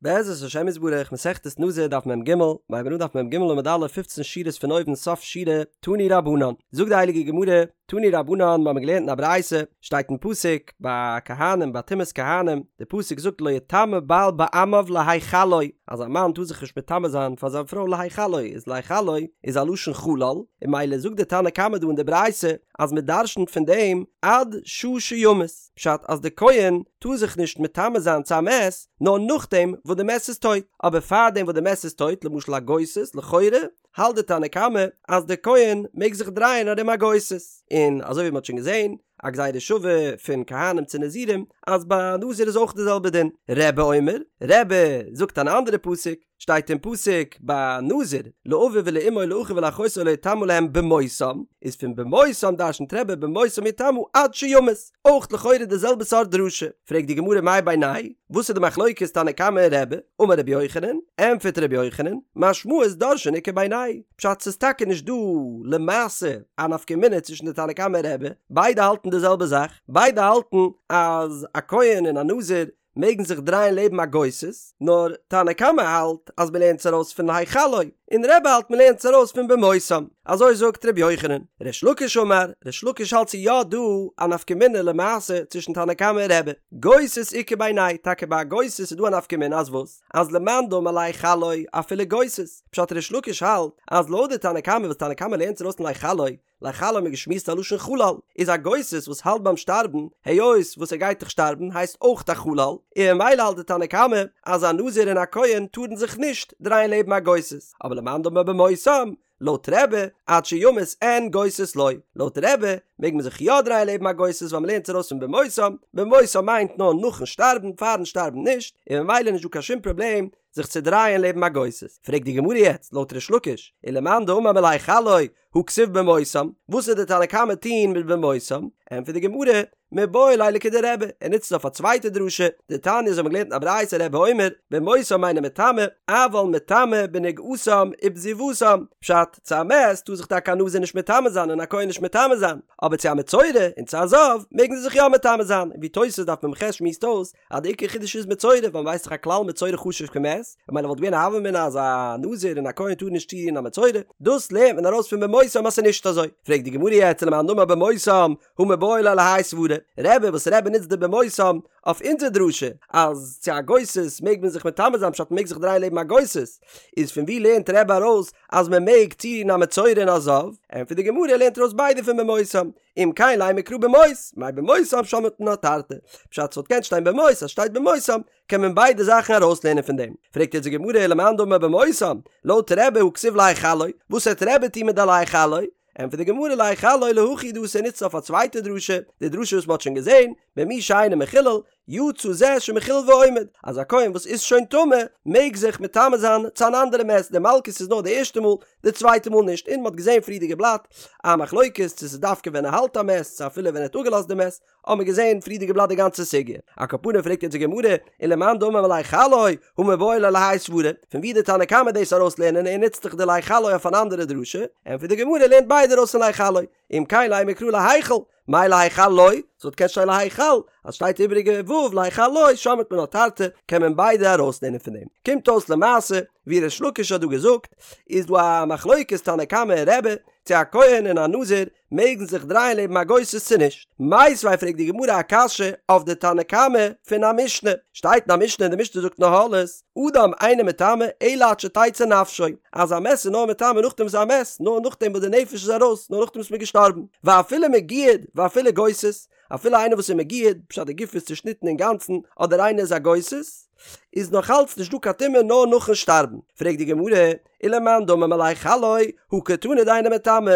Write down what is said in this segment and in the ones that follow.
בעזרת השם יתברך, מסכת נזיר דף מ"ג, מ'הייבן אן דף מ"ג עמוד א', פופצן שורות פון אויבן סוף שורה, תנו רבנן. זאגט די הייליגע גמרא, תנו רבנן, מ'האמיר געלערנט אין א ברייתא, שטייט אין פסוק, ביי כהנים, ביי טומאת כהנים, די פסוק זאגט לא יטמא בעל בעמיו להחלו, אז א מאן טאר זיך נישט מטמא זיין פאר זיין פרוי להחלו, איז להחלו איז א לשון חלל, און ממילא זאגט די תנא קמא דא אין די ברייתא, אז מ'דרשנ'ט פון דעם עד שעה שימות. פשט אז די כהן טאר זיך נישט מטמא זיין צו א מת נאר נאכדעם וואס די מת איז טויט, אבער פארדעם וואס די מת איז טויט, למשל א גוסס, לכאורה האלט די תנא קמא אז די כהן מעג זיך דרייען ארום א גוסס, און אזוי ווי מען האט שוין געזען א גזירה שווה פון כהנים צו נזירים אז ביי א נזיר איז אויך די זעלבע דין. רבי אומר, רבי זאגט אן אנדערע פסוק, שטייט אין פסוק ביי נזיר, לאביו ולאמו לאחיו ולאחותו לא יטמא להם במותם, איז פון במותם דרשנ'ט רבי במותם יטמא עד שימות, אויך לכאורה די זעלבע סארט דרשה, פרעגט די גמרא מאי בינייהו וואס איז די מחלוקת תנא קמא און רבי, אמר רבי יוחנן, ענטפערט רבי יוחנן, משמעות דורשין איכא בינייהו פשט ס'איז טאקע נישט דא למעשה א נפקא מינה צווישן די תנא קמא און רבי, ביידע האלטן די זעלבע זאך, ביידע האלטן אז א כהן און א נזיר מעגן זיך דרייען לעבן א גוסס, נאר תנא קמא האלט אז מ'לערנט עס ארויס פון להחלו, און רבי האלט מ'לערנט עס ארויס פון במותם, אזוי זאגט ר' יוחנן. ריש לקיש אמר, ריש לקיש האלט ס'איז יא דא א נפקא מינה למעשה צווישן תנא קמא און רבי. גוסס איכא בינייהו, טאקע ביי א גוסס איז דא א נפקא מינה אז וואס? אז למאן דאמר להחלו אפילו גוסס, פשט ריש לקיש האלט אז לויט די תנא קמא וואס תנא קמא לערנט עס ארויס פון להחלו, להחלו האט מען געשמועסט א לשון חלל, איז א גוסס וואס האלט ביים שטארבן, היות וואס ער גייט דאך שטארבן הייסט אויך א חלל, און ממילא האלט די תנא קמא אז א נזיר און א כהן טארן זיך נישט דרייען לעבן א גוסס, אבער למאן דאמר במותם, לויט רבי, עד שימות אין גוסס לא, לויט רבי מעג מען זיך יא דרייען לעבן א גוסס ווייל מ'לערנט עס ארויס פון במותם, במותם מיינט נאר נאכן שטארבן, פארן שטארבן נישט, און ממילא נישט דא קיין שום פראבלעם זיך צו דרייען לעבן א גוסס. פרעגט די גמרא יעצט, לויט ריש לקיש, ולמאן דאמר מלהחלו, הא כתיב במותם, וואס וועט די תנא קמא טוהן מיט במותם? ענטפערט די גמרא, מיבעי ליה לכדרבי, ער נוצט עס אויף א צווייטע דרשה, דתניא אזוי האבן מיר געלערנט אין א ברייתא רבי אומר, במותם אינו מטמא, אבל מטמא בנגעתם ובזיבתם, פשט, צו א מת טאר זיך טאקע א נזיר נישט מטמא זיין און א כהן נישט מטמא זיין, אבער צו א מצורע און צו א זב מעגן זיי זיך יא מטמא זיין, ווי תוס' דף מ"ח שמועסט אויס, אז די עיקר חידוש איז מצורע ווייל מ'ווייסט דאך א כלל מצורע חשוב כמת, ממילא וואלט געווען א הוה אמינא אז א נזיר און א כהן טארן נישט צורירן א מצורע, דאס לערנט מען ארויס פון במותם אז ס'איז נישט אזוי. פרעגט די גמרא יעצט ולמאן דאמר במותם הא מיבעי ליה להאי סברא, רבי וואס רבי נוצט די במותם אויף אונזער דרשה אז צו א גוסס מעג מען זיך מטמא זיין פשט מ'מעג זיך דרייען לעבן א גוסס, איז פון ווי לערנט רבי ארויס אז מ'מעג צורירן א מצורע און א זב? ענטפערט די גמרא ער לערנט ארויס ביידע פון במותם, אם כן לימא קרא במות, מאי במותם שמעת מינה תרתי. פשט ס'וואלט געקענט שטיין במות, אז שטייט במותם, קען מען ביידע זאכן ארויסלערנען פון דעם. פרעגט יעצט די גמרא ולמאן דאמר במותם, לויט רבי הא כתיב להחלו, וואס וועט רבי טון מיט די להחלו? ענטפערט די גמרא להחלו להכי הוא דאתא ער נוצט אויף א צווייטע דרשה, די דרשה וואס מ'האט שוין געזען, במי שאינו מחולל, יצא זה שמחולל ועומד, אז א כהן וואס איז שוין טמא מעג זיך מטמא זיין צו אן אנדערע מת, די מלקות איז נאר די ערשטע מאל, די צווייטע מאל נישט, און מ'האט געזען פריערדיגע בלאט א מחלוקת צו ס'איז דווקא ווען ער האלט א מת צו אפילו ווען ער האט אפגעלאזט די מת, האט מען געזען פריערדיגע בלאט די גאנצע סוגיא. על כל פנים פרעגט יעצט די גמרא, ולמאן דאמר מלהחלו, הא מיבעי ליה להאי סברא, פון ווי די תנא קמא דאס ארויסלערנען ער נוצט דאך די להחלו אויף אן אנדערע דרשה, ענטפערט די גמרא ער לערנט ביידע ארויס פון להחלו, אם כן לימא קרא להיכל, מאי להחלו, ס'וואלט געקענט שטיין להיכל, אז שטייט איבעריגע ו' להחלו שמעת מינה תרתי, קען מען ביידע ארויסלערנען פון דעם. קומט אויס למעשה, ווי ריש לקיש האט דא געזאגט, איז דא א מחלוקת תנא קמא און רבי, צו א כהן און א נזיר מעגן זיך דרייען לעבן א גוסס צו נישט. מיתיבי פרעגט די גמרא א קשיא אויף די תנא קמא פון א משנה, שטייט אין א משנה און די משנה זאגט אין אהלות, אדם אינו מטמא אלא עד שתצא נפשו, אז א מת איז נאר מטמא נאכדעם וואס איז א מת, נאר נאכדעם וואס די נפש איז ארויס, נאר נאכדעם וואס מ'איז געשטארבן, ואפילו מגויד ואפילו גוסס, אפילו איינער וואס איז מגויד, פשט די גוף איז צושניטן אינגאנצן, אדער איינער איז א גוסס, איז נאך אלץ נישט דא קיין טומאה נאר נאכן שטארבן. פרעגט די גמרא, ולמאן דאמר מלהחלו, הא קתני דאינו מטמא,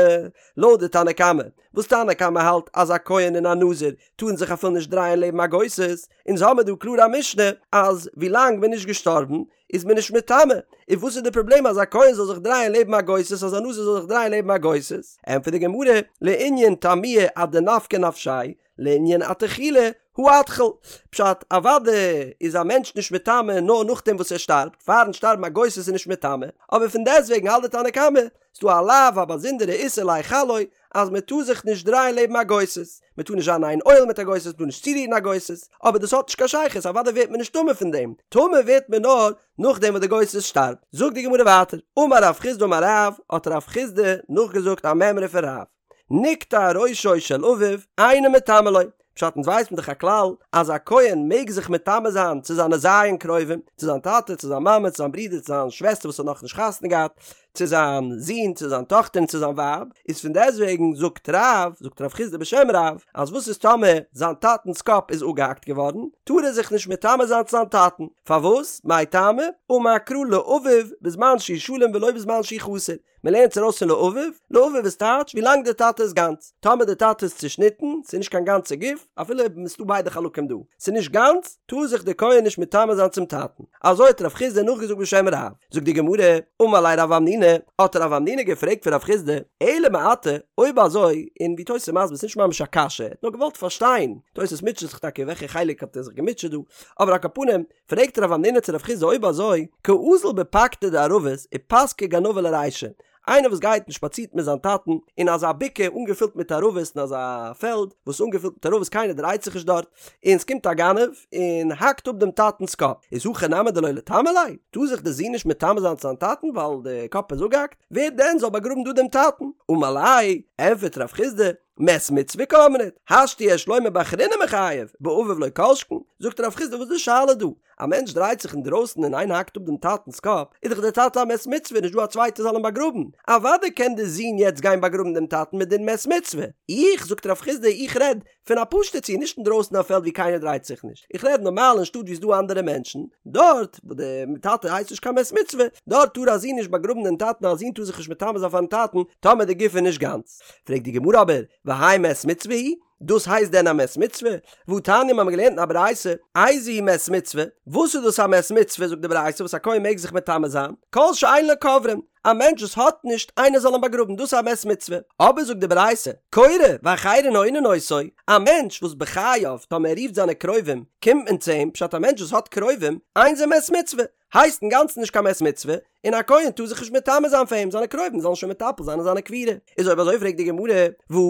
לויט די תנא קמא, וואס תנא קמא האלט אז א כהן און א נזיר טארן זיך אפילו נישט דרייען לעבן א גוסס, אונז האמיר דא קלאר א משנה אז ווילאנג מען איז נישט געשטארבן איז מען נישט מטמא, און וואס איז די פראבלעם אז א כהן זאל זיך דרייען לעבן א גוסס אז א נזיר זאל זיך דרייען לעבן א גוסס? ענטפערט די גמרא, לענין טמויי עד דנפקא נפשיה, לענין אתחולי הא אתחיל. פשט, אוודאי איז א מענטש נישט מטמא נאר נאכדעם וואס ער שטארבט, פארן שטארבן א גוסס איז נישט מטמא, אבער פון דעסטוועגן האלט די תנא קמא, ס'דא א לאו א באזונדערע איסור להחלו. אז מען טאר זיך נישט דרייען לעבן א גוסס, מען טאר נישט זיין אין איין אוהל מיט א גוסס, מען טאר נישט צורירן א גוסס, אבער דאס האט נישט קיין שייכות, אוודאי ווערט מען נישט טמא פון דעם, טמא ווערט מען נאר נאכדעם וואס די גוסס שטארבט. זאגט די גמרא ווייטער, אמר רב חסדא אמר רב, האט רב חסדא נאכגעזאגט א מימרא פון רב, נקטע ראשו של אביו, אינו מטמא לו, פשט אונז ווייסן דאך א כלל אז א כהן מעג זיך מטמא זיין צו זיינע ז' קרובים, צו זיין טאטע, צו זיין מאמע, צו זיין ברודער, צו זיין שוועסטער וואס האט נאכנישט חתונה געהאט, צו זיין זון, צו זיין טאכטער און צו זיין ווייב, איז פון דעסטוועגן זאגט רב, זאגט רב חסדא בשם רב, אז וואס איז טאמער זיין טאטנ'ס קאפ איז אפגעהאקט געווארן, טאר ער זיך נישט מטמא זיין צו זיין טאטן, פארוואס? מאי טעמא? אמר קרא לאביו בזמן שהוא שלם ולא בזמן שהוא חסר, מען לערנט עס ארויס פון לאביו, לאביו איז טייטש ווי לאנג דער טאטע איז גאנץ, טאמער דער טאטע איז צושניטן, ס'איז נישט קיין גאנצע גוף, אפילו אויב ס'איז דא ביידע חלקים דא, ס'איז נישט גאנץ, טאר זיך דער כהן נישט מטמא זיין צום טאטן. אזוי האט רב חסדא נאכגעזאגט בשם רב. זאגט די גמרא, אמר ליה רב המנונא, האט רב המנונא געפרעגט פון רב חסדא, אלא מעתה, אויב אזוי, און ווי תוס' איז מסביר ס'נישט ממש א קשיא, ער האט נאר געוואלט פארשטיין, תוס' מוטשעט זיך טאקע וועלכע חלק האט ער זיך געמוטשעט דא, אבער על כל פנים, פרעגט רב המנונא צו רב חסדא אויב אזוי, קאזיל בפקתא דערבות ופסקיה גנבא לרישיה, איינער וואס גייט און שפאצירט מיט זיין טאטן אין אזא בקעה אנגעפילט מיט ערבות אין אזא פעלד וואס איז אנגעפילט מיט ערבות קיינער דרייט זיך נישט דארט, און ס'קומט א גנב און האקט אפ דעם טאטנ'ס קאפ, איז הכי נמי דלא ליטמא ליה? טאר זיך דער זון נישט מטמא זיין צו זיין טאטן ווייל די קאפ איז אפגעהאקט? ווער דען זאל באגראבן דא דעם טאטן? אמר ליה, ענפערט רב חסדא, מת מצוה קאמרת, השתא יש לומר באחריני מיחייב, באביו לא כל שכן, זאגט רב חסדא וואס איז די שאלה דא? א מענטש דרייט זיך אינדרויסן און איינער האקט אפ דעם טאטנ'ס קאפ, איז דאך דער טאטע א מת מצוה, נישט דא א צווייטער זאל אים באגראבן, אוודאי קען דער זון יעצט גיין באגראבן דעם טאטן מיט דין מת מצוה. איך, זאגט רב חסדא, איך רעד פון א פשוטע ציור, נישט אינדרויסן אין א פעלד ווי קיינער דרייט זיך נישט, איך רעד נארמאל אין שטאט ווי ס'דא אנדערע מענטשן, דארט וואו דער טאטע הייסט נישט קיין מת מצוה, דארט טאר א זון נישט באגראבן דעם טאטן, א זון טאר זיך נישט מטמא זיין פארן טאטן טאמער די גוף איז נישט גאנץ. פרעגט די גמרא אבער, והאי מת מצוה הוא? דאס הייסט דען א מת מצוה? והתניא מ'האמיר געלערנט אין א ברייתא, איזהו מת מצוה? וואס איז דאס א מת מצוה זאגט די ברייתא וואס א כהן מעג זיך מטמא זיין? כל שאין לו קוברין, א מענטש וואס האט נישט איינער זאל אים באגראבן דאס איז א מת מצוה. אבער זאגט די ברייתא, קורא ואחרים עונין אותו, א מענטש וואס בחייו טאמער ער רופט זיינע קרובים קומט מען צו אים, פשט א מענטש וואס האט קרובים, אין זה מת מצוה, הייסט אינגאנצן נישט קיין מת מצוה, און א כהן טאר זיך נישט מטמא זיין פאר אים, זיינע קרובים זאלן שוין מטפל זיין אין זיינע קבורה. איז אויב אזוי פרעגט די גמרא, והא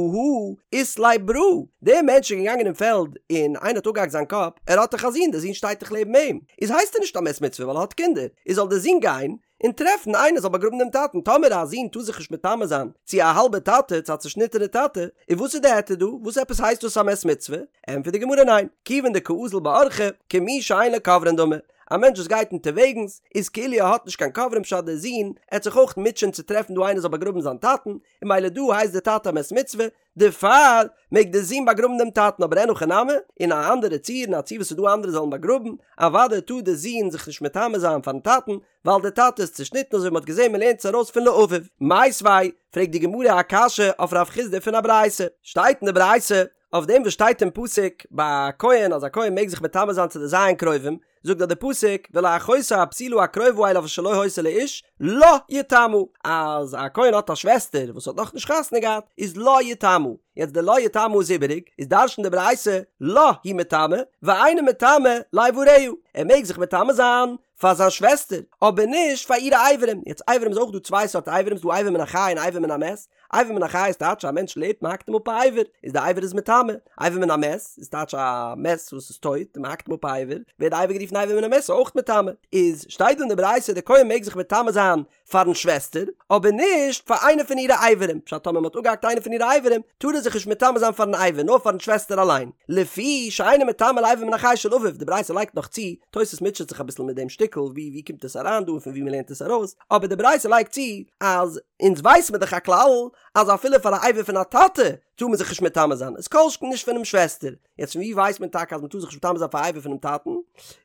אית ליה ברא, דער מענטש איז געגאנגען אין פעלד און איינער האט אפגעהאקט זיין קאפ, ער האט דאך א זון, דער זון שטייט דאך לעבן אים, איז הייסט ער נישט א מת מצוה ווייל ער האט קינדער, איז זאל דער זון גיין און טרעפן איינער זאל באגראבן דעם טאטן, טאמער א זון טאר זיך נישט מטמא זיין צו א האלבע טאטע, צו א צושניטענע טאטע, איז וואס איז די היתר דא? וואס עפעס הייסט דאס א מת מצוה? ענטפערט די גמרא ניין, כיוון דקאזיל באורחא, כמי שאין לו קוברין דמי, א מענטש וואס גייט אונטערוועגנס איז כאילו ער האט נישט קיין קוברים פשט דער זון עט זיך אויך מוטשען צו טרעפן דא איינער זאל באגראבן זיין טאטן און ממילא דא הייסט דער טאטע א מת מצוה דערפאר מעג דער זון באגראבן דעם טאטן אבער אין הכי נמי אין א אנדערע ציור אין א ציור וואס איז דא אנדערע זאלן באגראבן אוודאי טאר דער זון זיך נישט מטמא זיין פארן טאטן ווייל דער טאטע איז צושניטן אזוי ווי מען האט געזען מען לערנט עס ארויס פון לאביו. מיתיבי, פרעגט די גמרא א קשיא אויף רב חסדא פון א ברייתא, שטייט אין די ברייתא אויף דעם וואס שטייט אין פסוק ביי א כהן אז א כהן מעג זיך מטמא זיין צו די ז' קרובים, זאגט דאך די פסוק ולאחותו הבתולה הקרובה אליו אשר לא היתה לאיש לה יטמא, אז א כהן האט א שוועסטער וואס האט נאכנישט חתונה געהאט איז לה יטמא, יעצט די לה יטמא איז איבעריג, איז דרש'נט די ברייתא לה הוא מטמא ואינו מטמא לאבריה, ער מעג זיך מטמא זיין פאר זיין שוועסטער, אבער נישט פאר אירע אברים, יעצט אברים איז אויך דא צוויי סארט אברים, ס'דא אבר מן החי און אבר מן המת, אבר מן החי איז טייטש א מענטש לעבט מען האקט אים אפ א אבר, איז די אבר איז מטמא, אבר מן המת איז טייטש א מת וואס איז טויט און מען האקט אים אפ א אבר, ווערט די אבר גערופן אבר מן המת איז אויך מטמא, איז שטייט דא אין די ברייתא די כהן מעג זיך מטמא זיין פארן שוועסטער, אבער נישט פאר איינע פון אירע אברים, פשט טאמער מען האט אפגעהאקט איינע פון אירע אברים, טאר ער זיך נישט מטמא זיין פארן אבר, נאר פארן שוועסטער אליין, לפי שאינו מטמא לאבר מן החי של אביו, די ברייתא לייגט נאך צו, תוס' מוטשעט זיך אביסל מיט דעם שטיקל, ווי ווי קומט עס אריין דא און פון ווי מען לערנט עס ארויס, אבער די ברייתא לייגט צו, אז אונז ווייס מיר דאך א כלל, אז אפילו פאר א אבר פון א טאטע, טאר מען זיך נישט מטמא זיין, איז כל שכן נישט פונעם שוועסטער. יעצט פון ווי ווייסט מען טאקע אז מען טאר זיך נישט מטמא זיין פאר א אבר פונעם טאטן?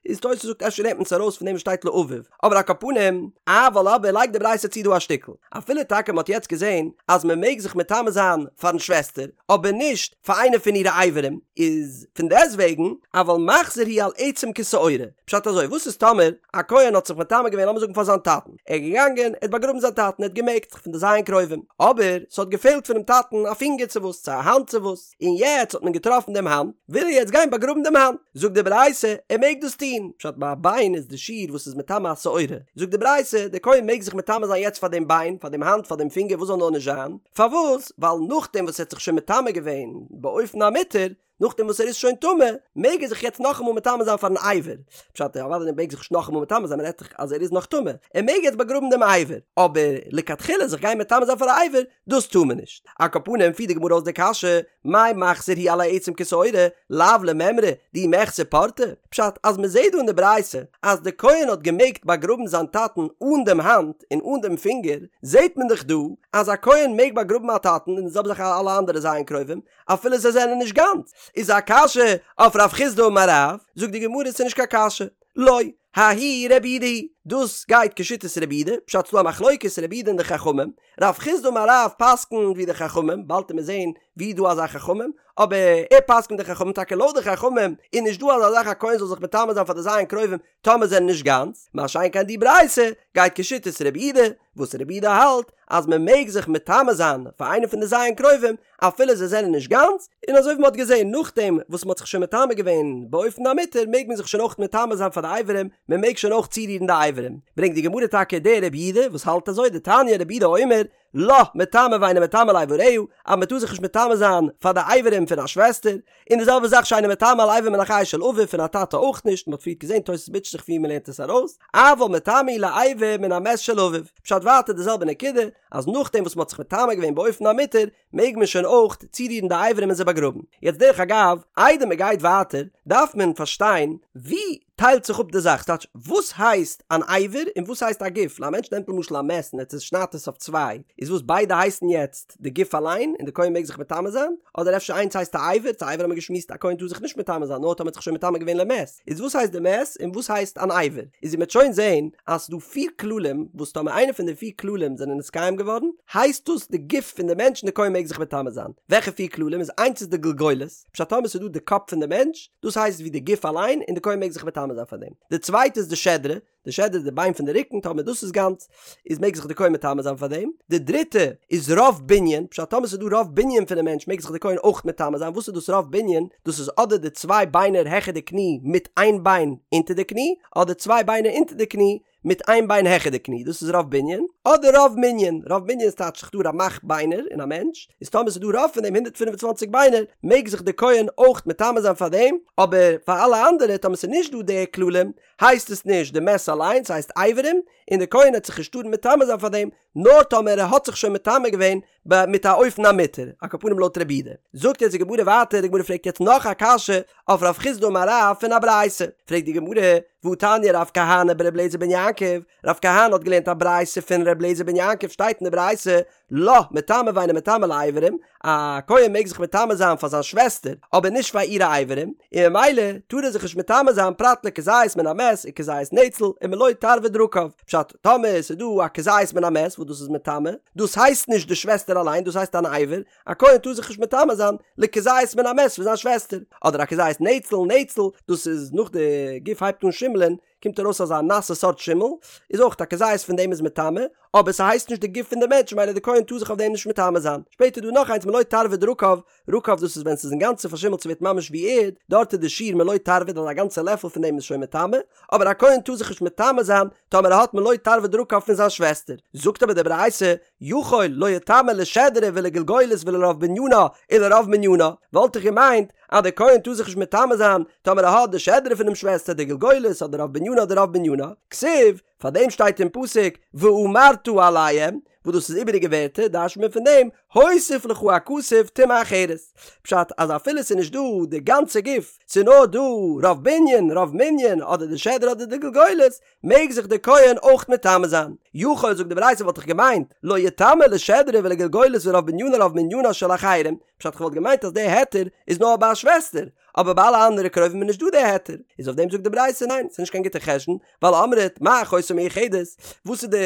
איז תוס' זאגט אפשר לערנט מען עס ארויס פון דעם וואס שטייט לאביו, אבער על כל פנים, אבל אבער לייגט די ברייתא צו דא א שטיקל, אפילו טאקע מען האט יעצט געזען אז מען מעג זיך מטמא זיין פארן שוועסטער, אבער נישט פאר איינע פון אירע אברים, איז פון דעסטוועגן, אבל מחזיר הוא על עצם כשעורה, פשט אזוי, וואס איז טאמער א כהן האט זיך מטמא געווען לאמיר זאגן פאר זיין טאטן, ער איז געגאנגען, ער האט באגראבן זיין טאטן, ער האט געמעגט, פון די ז' קרובים, אבער ס'האט געפעלט פונעם טאטן א פינגער צו וואס. צו א האנט צו וואס, און יעצט האט מען געטראפן דעם האנט, וויל ער יעצט גיין באגראבן דעם האנט, זאגט די ברייתא, ער מעג דאס טון, פשט ביי א ביין איז די שיעור וואס איז מטמא א שעורה, זאגט די ברייתא, דער כהן מעג זיך מטמא זיין יעצט פאר דעם ביין, פאר דעם האנט, פאר דעם פינגער, וואס זאל נאר נישט זיין, פארוואס? ווייל נאכדעם וואס ער האט זיך שוין מטמא געווען באופן המותר, נאכדעם וואס ער איז שוין טמא, מעג ער זיך יעצט נאכאמאל מטמא זיין פארן אבר. פשט, אוודאי ער מעג זיך נישט נאכאמאל מטמא זיין, מען רעדט דאך אז ער איז נאך טמא, ער מעג יעצט באגראבן דעם אבר, אבער לכתחילה זיך גיין מטמא זיין פאר א אבר, דאס טאר מען נישט. על כל פנים פירט די גמרא אויס די קשיא, מאי מחזיר הוא על העצם כשעורה, לאו למימרא דאי מיחסר פורתא? פשט, אז מען זעט דא אין די ברייתא אז די כהן האט געמעגט באגראבן זיין טאטן אן דעם האנט און אן דעם פינגער, זעט מען דאך דא אז א כהן מעג באגראבן א טאטן און די זעלבע זאך אלע אנדערע ז' קרובים, אפילו זיי זענען נישט גאנץ, איז א קשיא אויף רב חסדא אמר רב, זאגט די גמרא ס'איז נישט קיין קשיא, לא, ההיא רבי יהודה היא, דאס גייט כשיטת רבי יהודה, פשט ס'דא א מחלוקת רבי יהודה און די חכמים, רב חסדא אמר רב פסק'נט ווי די חכמים, באלד עמיר זעהן ווי איז דא אזא חכמים, אבער ער פסק'נט די חכמים, טאקע לויט די חכמים איז נישט דא אזא זאך א כהן זאל זיך מטמא זיין פאר די ז' קרובים טאמער זענען נישט גאנץ, מה שאין כן די ברייתא גייט כשיטת רבי יהודה, וואס רבי יהודה האלט אז מען מעג זיך מטמא זיין פאר איינע פון די ז' קרובים אפילו זיי זענען נישט גאנץ, און אזוי ווי מען האט געזען נאכדעם וואס מען האט זיך שוין מטמא געווען באופן המותר מעג מען זיך שוין אויך מטמא זיין פאר די אברים, מען מעג שוין אויך צורירן די אברים, ברענגט די גמרא טאקע די רבי יהודה וואס האלט אזוי דתניא רבי יהודה אומר לה מטמא ואינו מטמא לאבריה, אז מען טאר זיך נישט מטמא זיין פאר די אברים פון א שוועסטער, און די זעלבע זאך שאינו מטמא על אבר מן החי של אביו פון א טאטע אויך נישט, מען האט פריערט געזען תוס' מוטשעט זיך ווי מען לערנט עס ארויס, אבל מטמא הוא לאבר מן המת של אביו, פשט ווייטער די זעלבע נקודה, אז נאכדעם וואס מען האט זיך מטמא געווען באופן המותר, מעג מען שוין אויך צורירן די אברים און זיי באגראבן. יעצט דרך אגב, איידער מען גייט ווייטער, דארף מען פארשטיין ווי טיילט זיך אפ די זאך, ס'טייטש וואס הייסט אן אבר און וואס הייסט א גוף, א מענטש נעמט למשל א מת און ער צושניידט עס אויף צוויי, איז וואס ביידע הייסן יעצט די גוף אליין און די כהן מעג זיך מטמא זיין? אדער אפשר איינס הייסט א אבר, צו אבר האט מען געשמועסט א כהן טאר זיך נישט מטמא זיין נאר טאמער האט זיך שוין מטמא געווען למת, איז וואס הייסט די מת און וואס הייסט אן אבר? איז ווי מ'עט שוין זעהן אז ס'דא פיר כללים וואס טאמער איינע פון די פיר כללים זענען נתקיים געווארן הייסט דאס די גוף פון די מענטש און די כהן מעג זיך מטמא זיין, וועלכע פיר כללים איז איינס איז די גלגולת, פשט טאמער ס'איז דא די קאפ פון די מענטש, דאס הייסט ווי די גוף אליין און די כהן מעג זיך מטמא זיין פאר דעם. די צווייטע איז די שדרה, די שדרה איז די ביין פון די רוקן, טאמער דאס איז גאנץ, איז מעג זיך די כהן מטמא זיין פאר דעם. די דריטע איז רוב בנין, פשט טאמער ס'איז דא רוב בנין פונעם מענטש מעג זיך די כהן אויך מטמא זיין, וואס איז דאס רוב בנין? דאס איז אדער די צוויי ביינער העכער די קני מיט איין ביין אונטער די קני, אדער צוויי ביינער אונטער די קני מיט איין ביין העכער די קני, דאס איז רוב בנין, אדער רוב מנין, רוב מנין איז טייטש ס'איז דא רמ"ח ביינער אין א מענטש, איז טאמער ס'איז דא רוב פון דעם 125 ביינער, מעג זיך די כהן אויך מטמא זיין פאר דעם, אבער פאר אלע אנדערע טאמער ס'איז נישט דא די כללים, הייסט עס נישט די מת אליין, ס'הייסט אברים, און די כהן העט זיך נישט טארן מטמא זיין פאר דעם, נאר טאמער ער האט זיך שוין מטמא געווען ב מיט א אופן המותר, על כל פנים לויט רבי יהודה. זאגט יעצט די גמרא ווייטער, די גמרא פרעגט יעצט נאך א קשיא אויף רב חסדא אמר רב פון א ברייתא, פרעגט די גמרא, והתניא רב כהנא ברבי אליעזר בן יעקב, רב כהנא האט געלערנט א ברייתא פון רבי אליעזר בן יעקב שטייט אין די ברייתא, לה מטמא ואינו מטמא לאברים, א כהן מעג זיך מטמא זיין פאר זיין שוועסטער, אבער נישט פאר אירע אברים, און ממילא טאר ער זיך נישט מטמא זיין פרט לכזית מן המת וכזית נצל ומלא תרווד רקב, פשט, טאמער עס איז דא א כזית מן המת וואס דאס איז מטמא, דאס הייסט נישט די שוועסטער אליין, דאס הייסט אן אבר, א כהן טאר זיך נישט מטמא זיין לכזית מן המת פון זיין שוועסטער, אדער א כזית נצל, נצל, דאס איז נאך די גוף הייבט אן שימלען, קומט ארויס אזא נאסע סארט שימל, איז אויך א כזית פון דעם איז מטמא, אבער ס'הייסט נישט די גוף פון די מענטש ממילא די כהן טאר זיך אויף דעם נישט מטמא זיין. שפעטער איז דא נאך איינס מלא תרווד רקב, רקב דאס איז ווען ס'איז אינגאנצן פארשימלט ס'ווערט ממש ווי ערד, דארט איז די שיעור מלא תרווד אז א גאנצע לעפל פון דעם איז שוין מטמא, אבער א כהן טאר זיך נישט מטמא זיין טאמער ער האט מלא תרווד רקב פון זיין שוועסטער. זאגט אבער די ברייתא, יכול לא יטמא לשדרה ולגלגולת ולרוב בנינה ולרוב מנינה, וואלט איך געמיינט אז די כהן טאר זיך נישט מטמא זיין טאמער ער האט די שדרה פונעם שוועסטער די גלגולת אדער רוב בנינה אדער רוב מנינה, כתיב, פאר דעם שטייט אין פסוק ואמרת אליהם, וואס דאס איז איבעריגע ווערטער, דרש'נט מען פון דעם, הוסיף לך הכתוב טומאה אחרת, פשט אז אפילו ס'איז נישט דא די גאנצע גוף, ס'איז נאר דא רוב בנין, רוב מנין, אדער די שדרה אדער די גלגולת, מעג זיך די כהן אויך מטמא זיין. יכול זאגט די ברייתא וואלט איך געמיינט, לא יטמא לשדרה ולגלגולת ולרוב בנינה רוב מנינה של אחרים, פשט כ'וואלט געמיינט אז די היתר איז נאר ביי א שוועסטער, אבער ביי אלע אנדערע קרובים איז נישט דא די היתר, איז אויף דעם זאגט די ברייתא ניין ס'איז נישט קיין גוטע חשבון, ווייל אמרת מה אחותו מיוחדת, וואס איז די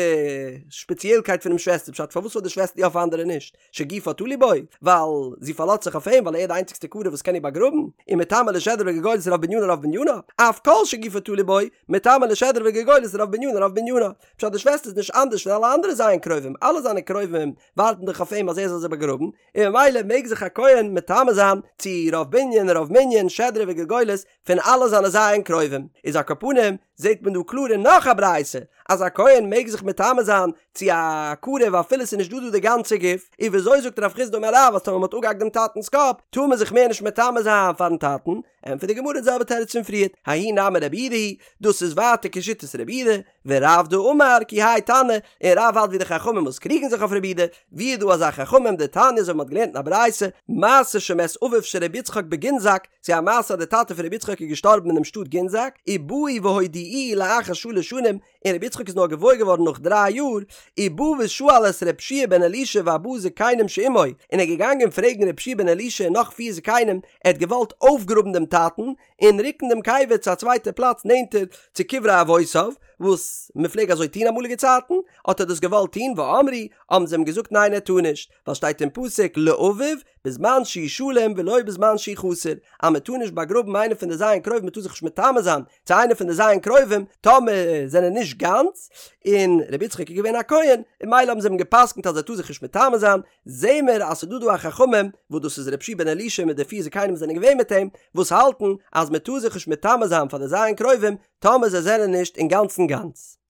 שפעציעלקייט פונעם שוועסטער פשט פארוואס פאר די שוועסטער יא פאר אנדערע נישט? שגופה תלוי בו, ווייל זי פארלאזט זיך אויף אים ווייל ער איז די איינציגסטע קרוב וואס קען איר באגראבן, ומטמא לשדרה וגולגולת רוב בנינה רוב בנינה, אף כל שגופו תלוי בו, מטמא לשדרה וגולגולת רוב בנינה רוב בנינה. פשט די שוועסטער איז נישט אנדערש פון אלע אנדערע ז' קרובים, אלע זיינע קרובים ווארטן דאך אויף אים אז ער זאל זיי באגראבן, און ממילא מעג זיך א כהן מטמא זיין צו רוב בנין רוב מנין שדרה וגולגולת פון אלע זיינע ז' קרובים, איז על כל פנים זעט מען דא קלאר אין נאך א ברייתא אז א כהן מעג זיך מטמא זיין צו א קרוב אפילו ס'איז נישט דא דא די גאנצע גוף, און וויאזוי זאגט רב חסדא אמר רב אז טאמער מ'האט אפגעהאקט דעם טאטנ'ס קאפ טאר מען זיך מער נישט מטמא זיין פארן טאטן, ענטפערט די גמרא די זעלבע תירוץ פון פריערט, ההיא נמי רבי יהודה היא, דאס איז ווייטער כשיטת רבי יהודה, ורב דאמר כי האי תנא, און רב האלט ווי די חכמים וואס קריגן זיך אויף רבי יהודה, ווי איז דא אזא חכמים דתניא אזוי ווי מ'האט געלערנט אין א ברייתא, מעשה שמת אביו של רבי יצחק בגינזק, ס'איז א מעשה אז די טאטע פון רבי יצחק איז געשטארבן אינעם שטאט גינזק, ובאו והודיעוהו לאחר שלש שנים, און רבי יצחק איז נאר געוואויר געווארן נאך דריי יאר, ובא ושאל את רבי יהושע בן אלישע וארבעה זקנים שעמו, און ער איז געגאנגען פרעגן רבי יהושע בן אלישע און נאך פיר זקנים, ער האט געוואלט אויפגראבן דעם טאטן, און רוקן דעם קבר צו א צווייטע פלאץ נענטער צו קברי אבותיו, וואס מען פלעג אזוי טון אמאליגע צייטן, האט ער דאס געוואלט טון, ואמרו, האבן זיי אים געזאגט ניין ער טאר נישט, ווייל שטייט אין פסוק לאביו בזמן שהוא שלם ולא בזמן שהוא חסר, אז מען טאר נישט באגראבן איינער פון די ז' קרובים מען טאר זיך נישט מטמא זיין צו איינער פון די ז' קרובים טאמער זענען נישט גאנץ, און רבי יצחק איז געווען א כהן, און ממילא האבן זיי אים גע'פסק'נט אז ער טאר זיך נישט מטמא זיין, זעהן מיר אז ס'איז דא דא א חכמים, וואס דאס איז רבי יהושע בן אלישע מיט די פיר זקנים וואס זענען געווען מיט אים, וואס האלטן אז מען טאר זיך נישט מטמא זיין פאר די ז' קרובים טאמער זיי זענען נישט אינגאנצן גאנץ.